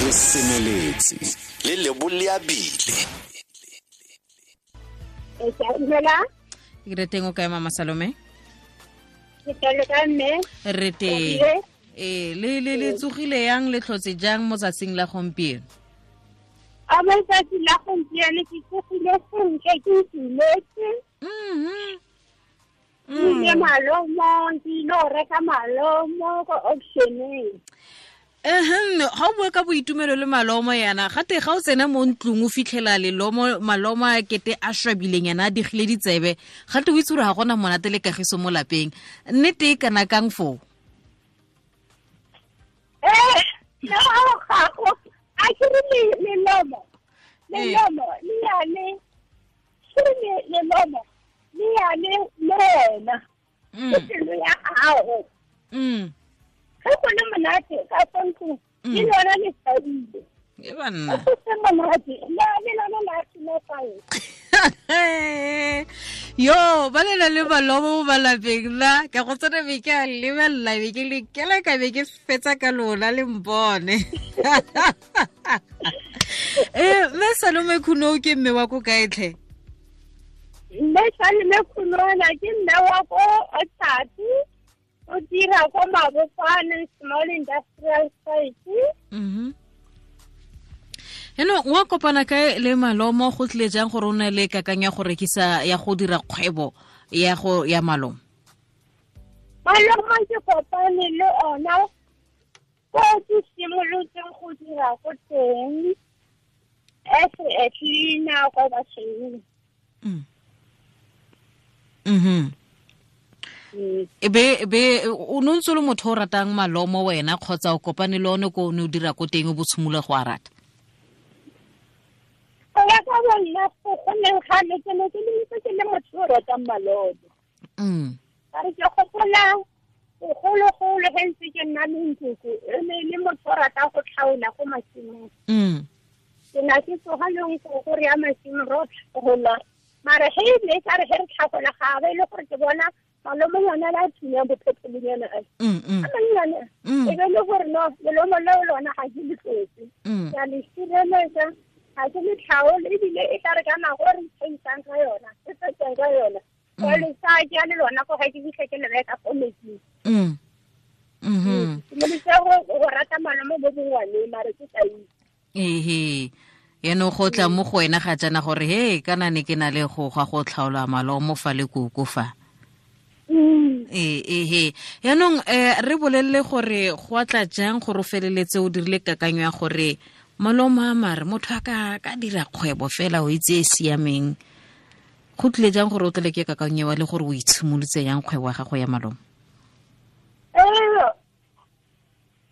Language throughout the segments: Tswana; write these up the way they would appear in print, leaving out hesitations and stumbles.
Re semeletse le leboleabile. Ke re teng, o kae, Mama Salome? Ke teng ka, mme. Re teng. Ee, le tsogile yang, le tlhotse jang mo tsatsing la gompieno? A mo tsatsi la gompieno ke tsogile sentle, ke itumetse. Ke malomo, ke ile go reka malomo ko auctioneng. Ehem, ga o bua ka boitumelo le malomo yana, gate ga o tsena mo ntlong o fitlhela lelomo, malomo a kete a shwabileng yana, a digile ditsebe, gate o itse gore ga gona monate le kagiso mo lapeng. Nnete e kana kang foo? Eh, no, gago a ke re lelomo, lelomo le yane, ke re lelomo le yane le wena, ke pelo ya gago. Ge go le monate ka fa ntlong, le lona le thabile. E banna. Go se monate, le lona la silafala. Yo, ba lela le malomo mo malapeng la ka go tsena, be ke a lebelela, be ke le kela ka be ke fetsa ka lona le mpone. Ee, mme Salome Khuno ke mme wa ko kae tlhe? Mme Salome Khunona ke mme wa ko Otapi, o dira ko Mabopane Small Industrial Site. Eno wa kopana kae le malomo? Go tlile jang gore o ne le kakanyo ya go rekisa, ya go dira kgwebo ya go ya malomo? Malomo ke kopane le ona ko ke simolotseng go dira ko teng as a cleaner kwa basweu. E be o ne o ntse o le motho o ratang malomo wena, kgotsa o kopane le one ko o ne o dira ko teng o bo tshimolola go a rata? Go ya ka bonna, go neng gale ke ne ke le ntse ke le motho o ratang malomo. Ka re ke gopola bogologolo ge ntse ke nna le nkoko, e ne e le motho o ratang go tlhaola ko masimong. Ke na ke tsoga le nkoko re ya masimo ro tlhagola, mara ge e ne e ka re ge re tlhagola, ga ba e le gore ke bona malomonyana la thunyang bophetolonyana a a mannyane, e be le gore no, lelomo leo lona ga ke le tlotse, ke a le sireletsa, ga ke le tlhaole. Ebile e tla re ka nako e re ithaisang ka yona, e fetsang ka yona, ka le sa ke le lona ko ga ke fitlhe ke le reka ko metsing. Simolotse go rata malomo mo bongwaneng, mare ke sa itse. Ehe, yaanong go tla mo go wena ga jaana gore he kana ne ke na le go ga go tlhaola malomo fa le koko fa. Ee, ehe, yaanong re bolelele gore go atla jang gore o feleletse o dirile kakanyo ya gore malomo a mare motho a ka dira kgwebo fela o itse e siameng. Go tlile jang gore o tlele ke kakanyo wa le gore o itshimolotse yang kgwebo ya gago ya malomo? Ee,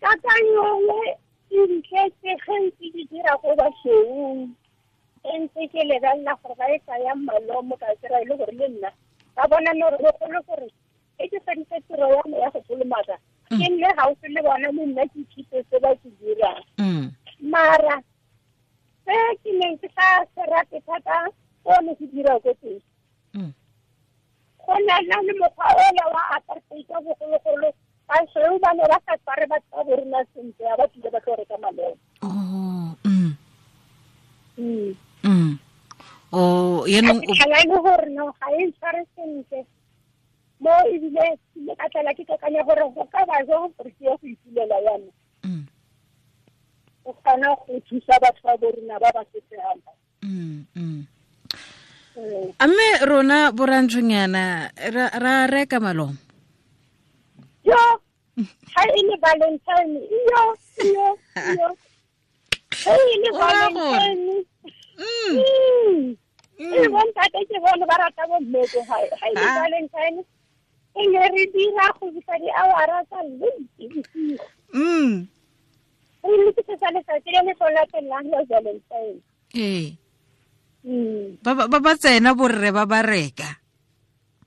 kakanyo e ntletse ge ntse ke dira ko basweuing, e ntse ke lebelela gore ba e tsayang malomo, ka kry-a e le gore le nna ka bona no bogolo gore e ke feditse tiro ya me ya go kolomaka, ke nne gaufi le bona, le nna ke ithute se ba se dirang. Mara se ke neng ke sa se rate thata ko ne ke dira ko teng, go na le mokgwa ola wa apartheid wa bogologolo, basweu ba ne ba sa tshware batho ba borona sentle ya ba tlile ba tlo reka malomo. Oh. Oh, yaanong fitlhela e le gore no, ga e ntshware sentle mo, ebile ke ka tlala ke kakanya gore go ka ba jang gore ke ye go ipulela yana, o kgona go thusa batho ba borona ba ba sotlegang. A mme rona borantshonyana ra reka malomo? Yo, ga e le Valentine, yo yo yo, ge e le O raya gore? Valentine, e bontate ke bone ba rata bomme ko gae. Ga e le Valentine, e ne re dira go fitlha di-hour-a tsa late bosigo, re lokisetsa letsatsi le le tlo latelang la Valentine. Ee, ba tsena borre ba ba reka.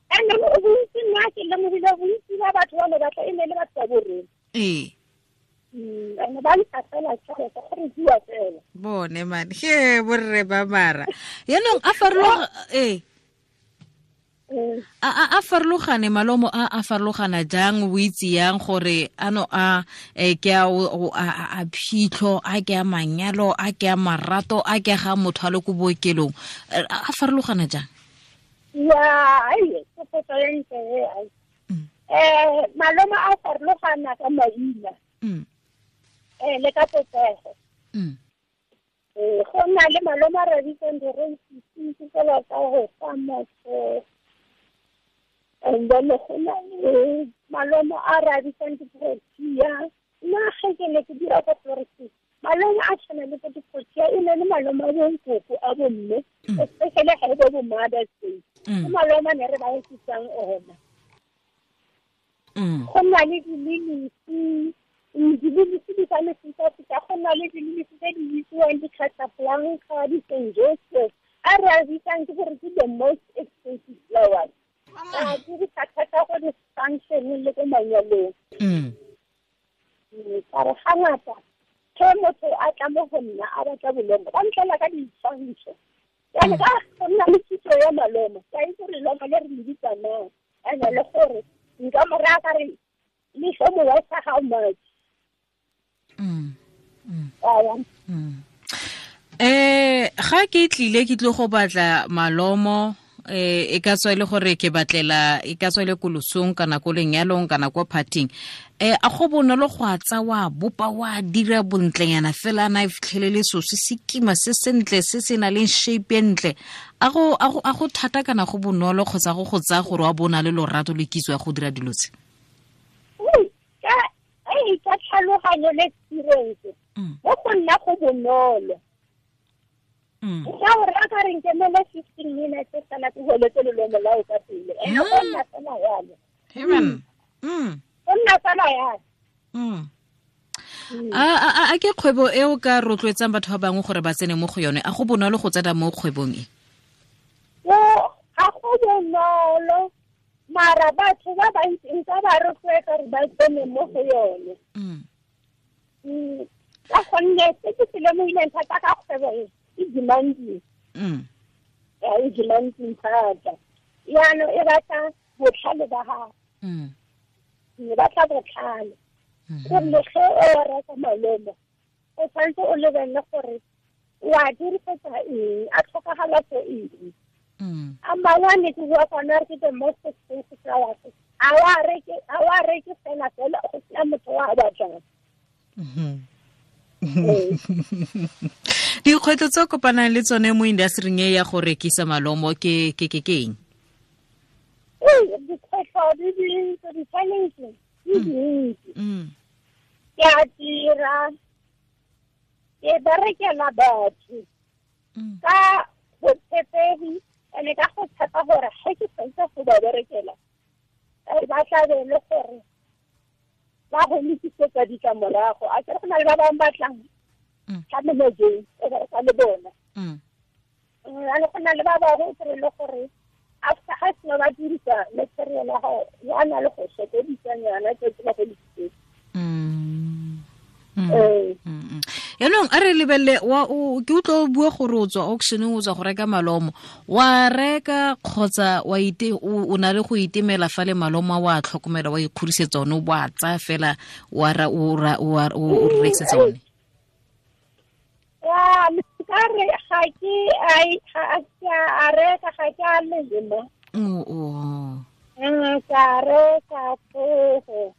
And bontsi, nna ke lemogile bontsi ba batho ba ne batla e ne le batho ba borre. And ba ntsha fela tšhelete go re bua fela. Bone man, he borre ba mara yaanong a farologa ee. A farologane malomo a farologana jang, o itse yang gore ano a ke a phitlho, a ke a manyalo, a ke a marato, a ke ga motho a le ko bookelong, a farologana jang? Ya, ai, ke potso e ntle e, ai. Malomo a farologana ka maina. Le ka popego. Go na le malomo a re bitsang di-rosisi, tsela tsa go fa motho. And then go na le malomo a re a bitsang di-protea. Nna ge ke ne ke dira ko florist, malomo a tshwana le bo di-protea e ne le malomo a bonkoko a bomme, especially ga e bo bo Mother's Day. Ke malomo a ne re ba etsisang ona. Go na le dililisi, dililisi di ka mefutafuta, go na le dililisi tse di bitsiwang di-Casablanca, di-Saint Joseph, a re a bitsang ke gore ke the most expensive flowers. A dirisa thata go di-function le ko manyalong. Ka re ga ngata ge motho a tla mo go nna a batla bolomo, ba ntlela ka ditshwantsho. Jane ka go nna le kitso ya malomo, ka itse gore lomo le re le bitsa mang, and-e le gore nka mo raya ka re le tlo mo worth-a how much. Ga ke tlile ke tlo go batla malomo, e ka tswa e le gore ke batlela, e ka tswa e le ko losong kana ko lenyalong kana ko partying, a go bonolo go a tsa wa bopa wa dira bontlenyana fela na e fitlhelele so se se kima se sentle se se na leng shape e ntle, a go thata kana go bonolo kgotsa go go tsaya gore wa bona le lorato le kitso ya go dira dilo tse? Ka tlhaloganyo le experience mo go nna go bonolo. Ka gore a ka re nkemele 15 minutes fela ke holetse lelomo la o ka pele. Ene go nna fela yalo. Go nna fela yalo. A ke kgwebo e o ka rotloetsang batho ba bangwe gore ba tsene mo go yone? A go bonolo go tsena mo kgwebong e? Ga go bonolo, mara batho ba bantsi nka ba rotloetsa gore ba tsene mo go yone. Ka gonne se ke se lemogileng thata ka kgwebo e, e demanding. E demanding thata. Jaanong e batla botlhale ba gago. E batla botlhale. Gonne ge o reka malomo, o tshwanetse o lebelele gore o a dirisetsa eng, a tlhokagala for eng. A mangwe a ne ke bua ka one a re ke the most expensive flowers. A wa reke fela fela go sena motho o a batlang. Dikgwetlho tse o kopanang le tsone mo industry-ing e ya go rekisa malomo ke eng? Dikgwetlho di dintsi, di-challenge di dintsi. Ke a dira, ke berekela batho ka botshepegi, and-e ka go tshepa gore ge ke fetsa go ba berekela, ba tla be le gore ba go lokisetsa ditlamorago. A kere go na le ba bangwe ba tlang ka melojeng e bereka le bona. Jalo go na le ba bangwe o kry-e le gore after ga sena ba dirisa material ya gago, ya na le go sokodisanyana tse ba go lokisetsa. Yaanong a re lebelele, ke utlwa o bua gore o tswa auctioneng, o tswa go reka malomo, wa reka kgotsa wa ite o na le go itemela fa le malomo a wa tlhokomela, wa ikgodisetsa one, o bo a tsaya fela wa ra o rekisetsa one? Ya, nka re ga ke a reka, ga ke a lema. Ka reka tsogo.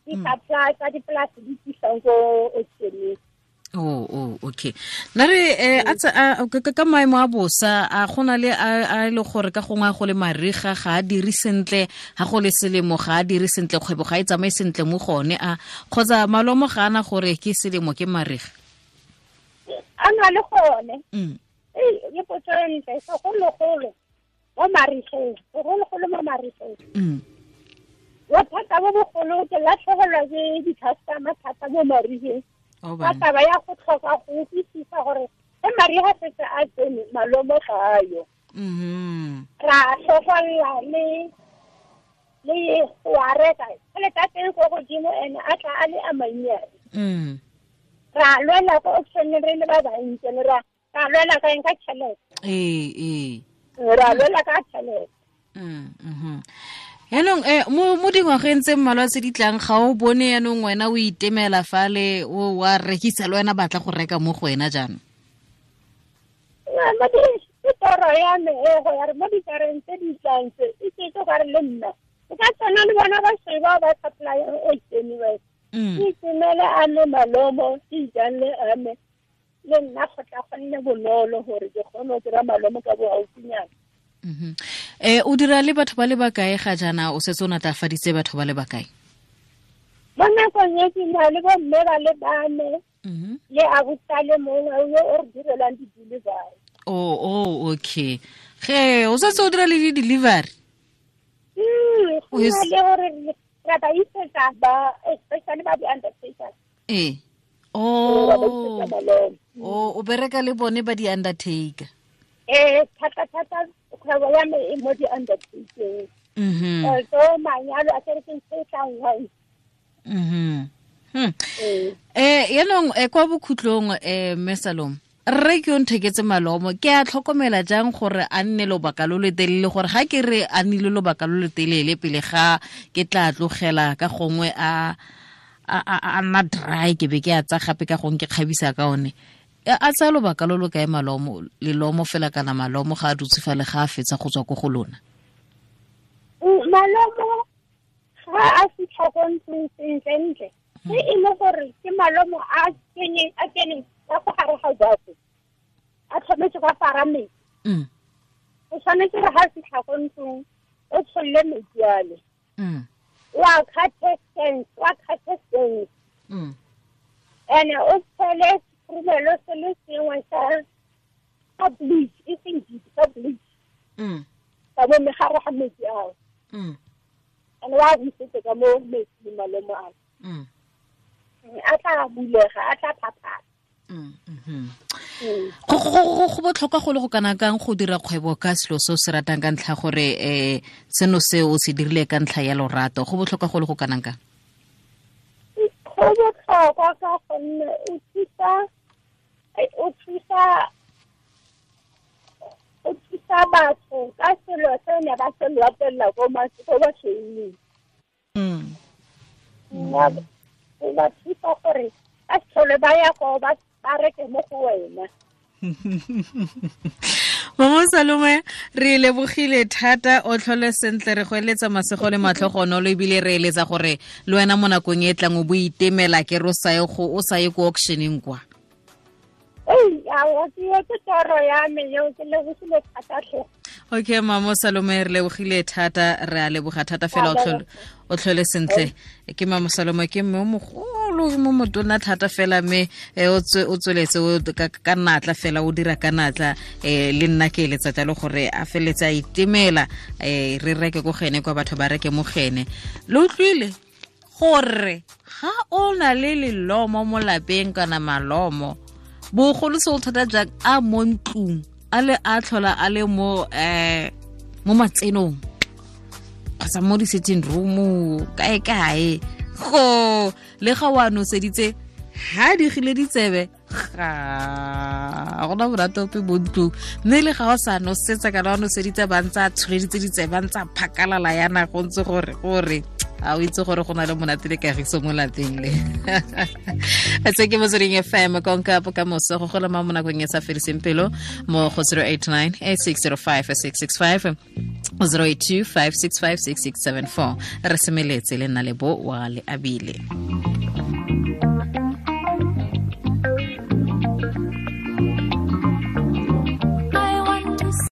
Di-supply tsa dipolase di tlisang ko auctioneng. Okay. Nna re ka maemo a bosa, a go na le a le gore ka gongwe go le mariga ga a dire sentle, ga go le selemo ga a dire sentle, kgwebo ga e tsamaye sentle mo go one, a kgotsa malomo ga ana gore ke selemo ke mariga? A na le gone. Ke potso e ntle, segologolo mo marigeng, segologolo mo marigeng. Bothata bo bogolo ke latlhegelwa ke di-customer thata mo marigeng. Ka taba ya go tlhoka go utlwisisa gore ge mariga setse a tsene malomo ga a yo. Ra tlhogolla le go a reka, tšhelete ya teng ko godimo and-e a tla a le a mannyane. Ra lwela ko auctioneng re le ba bantsi, ra lwela ka eng, ka tšhelete. Ra lwela ka tšhelete. Yaanong mo dingwageng tse mmalwa tse di tlang, ga o bone yaanong wena o itemela fale, o wa rekisa le wena batla go reka mo go wena jaanong? Ke toro ya me e go ya re mo dikareng tse di tlang tse, e ke gore le nna o ka tsena le bona ba sheba ba supply o tseniwe. Ke itemele a me malomo, ke ijale a me le nna go tla go nne bonolo gore ke kgone go kry-a malomo ka bo gaufinyana. O dira le batho ba le bakae ga jaana, o setse o natlafaditse batho ba le bakae? Mo nakong e ke na le bomme ba le bane le abusa le mongwe yo o re direlang di-delivery. Oh, okay. Ge o setse o dira le di-delivery? Go na le gore re ba isetsa ba, especially ba di-undertaker. Ee. O bereka le bone ba di-undertaker? Thata thata kgwebo ya me e mo di-undertaking. So manyalo a kere ke ntho e tlang once. Yaanong kwa bokhutlong, mme Salome, rre ke yo ntheketse malomo, ke a tlhokomela jang gore a nne lobaka lo le telele, gore ga ke re a nnile lobaka lo le telele pele ga ke tla tlogela ka gongwe a nna dry, ke be ke a tsa gape ka gongwe ke kgabisa ka one. A tsaya lobaka lo lo kae malomo, lelomo fela kana malomo ga a dutse fa le ga a fetsa go tswa ko go lona? Malomo ga a fitlha ko ntlong sentle-ntle, se e le gore ke malomo a keneng ka go gare ga jako, a tlhometse ka fara metsi. O tshwanetse gore ga a fitlha ko ntlong o tsholle metsi ale. Wa cut-e sense. And o tshele sekhurumelo se le sengwe sa bleach, e seng deep, sa bleach. Ka mo megare ga metsi ao. And wa busetse ka mo metsi malomo ao. A tla bulega, a tla phaphala. Go botlhokwa go le go kana kang go dira kgwebo ka selo se o se ratang ka ntlha gore seno se o se dirile ka ntlha ya lorato, go botlhokwa go le go kana kang? Go botlhokwa ka gonne o thusa batho ka selo se ne ba se latelela ko basweuning. O ba thusa gore ba se tlhole ba ya ko ba reke mo go wena. Mama Salome, re lebogile thata, o tlhole sentle, re go eletsa masego le matlhogonolo, ebile re eletsa gore le wena mo nakong e tlang o bo itemela ke re o sa ye ko auctioneng kwa. Ke toro ya me eo, ke lebogile thata tlhe. Okay, Mama Salome, re lebogile thata, re a leboga thata fela, o tlhole sentle. Ke Mama Salome, ke mme o mogolo, mo motona thata fela, mme o tsweletse ka natla fela, o dira ka natla. Le nna ke eletsa jalo gore a feletse a itemela, re reke ko gene kwa batho ba reke mo gene. Le utlwile gore ga o na le lelomo mo lapeng kana malomo, bogolo se o thata jang a mo ntlong, a le a tlhola a le mo mo matsenong kgotsa mo di-sitting room kae kae, go le ga o a noseditse ha digile ditsebe ga gona monate ope mo ntlong, mme le ga o sa nosetsa kana wa noseditse ba ntse a tsholeditse ditsebe, ba ntse a phakalala yana, go ntse gore a o itse gore go na le monate le kagiso mo lapeng le. Se ke Motsweding FM, konka bokamoso go gola mo nakong e sa fediseng pelo mo go 089 8605 665 082 565 6674. Re semeletse le nna le bo wa le abile.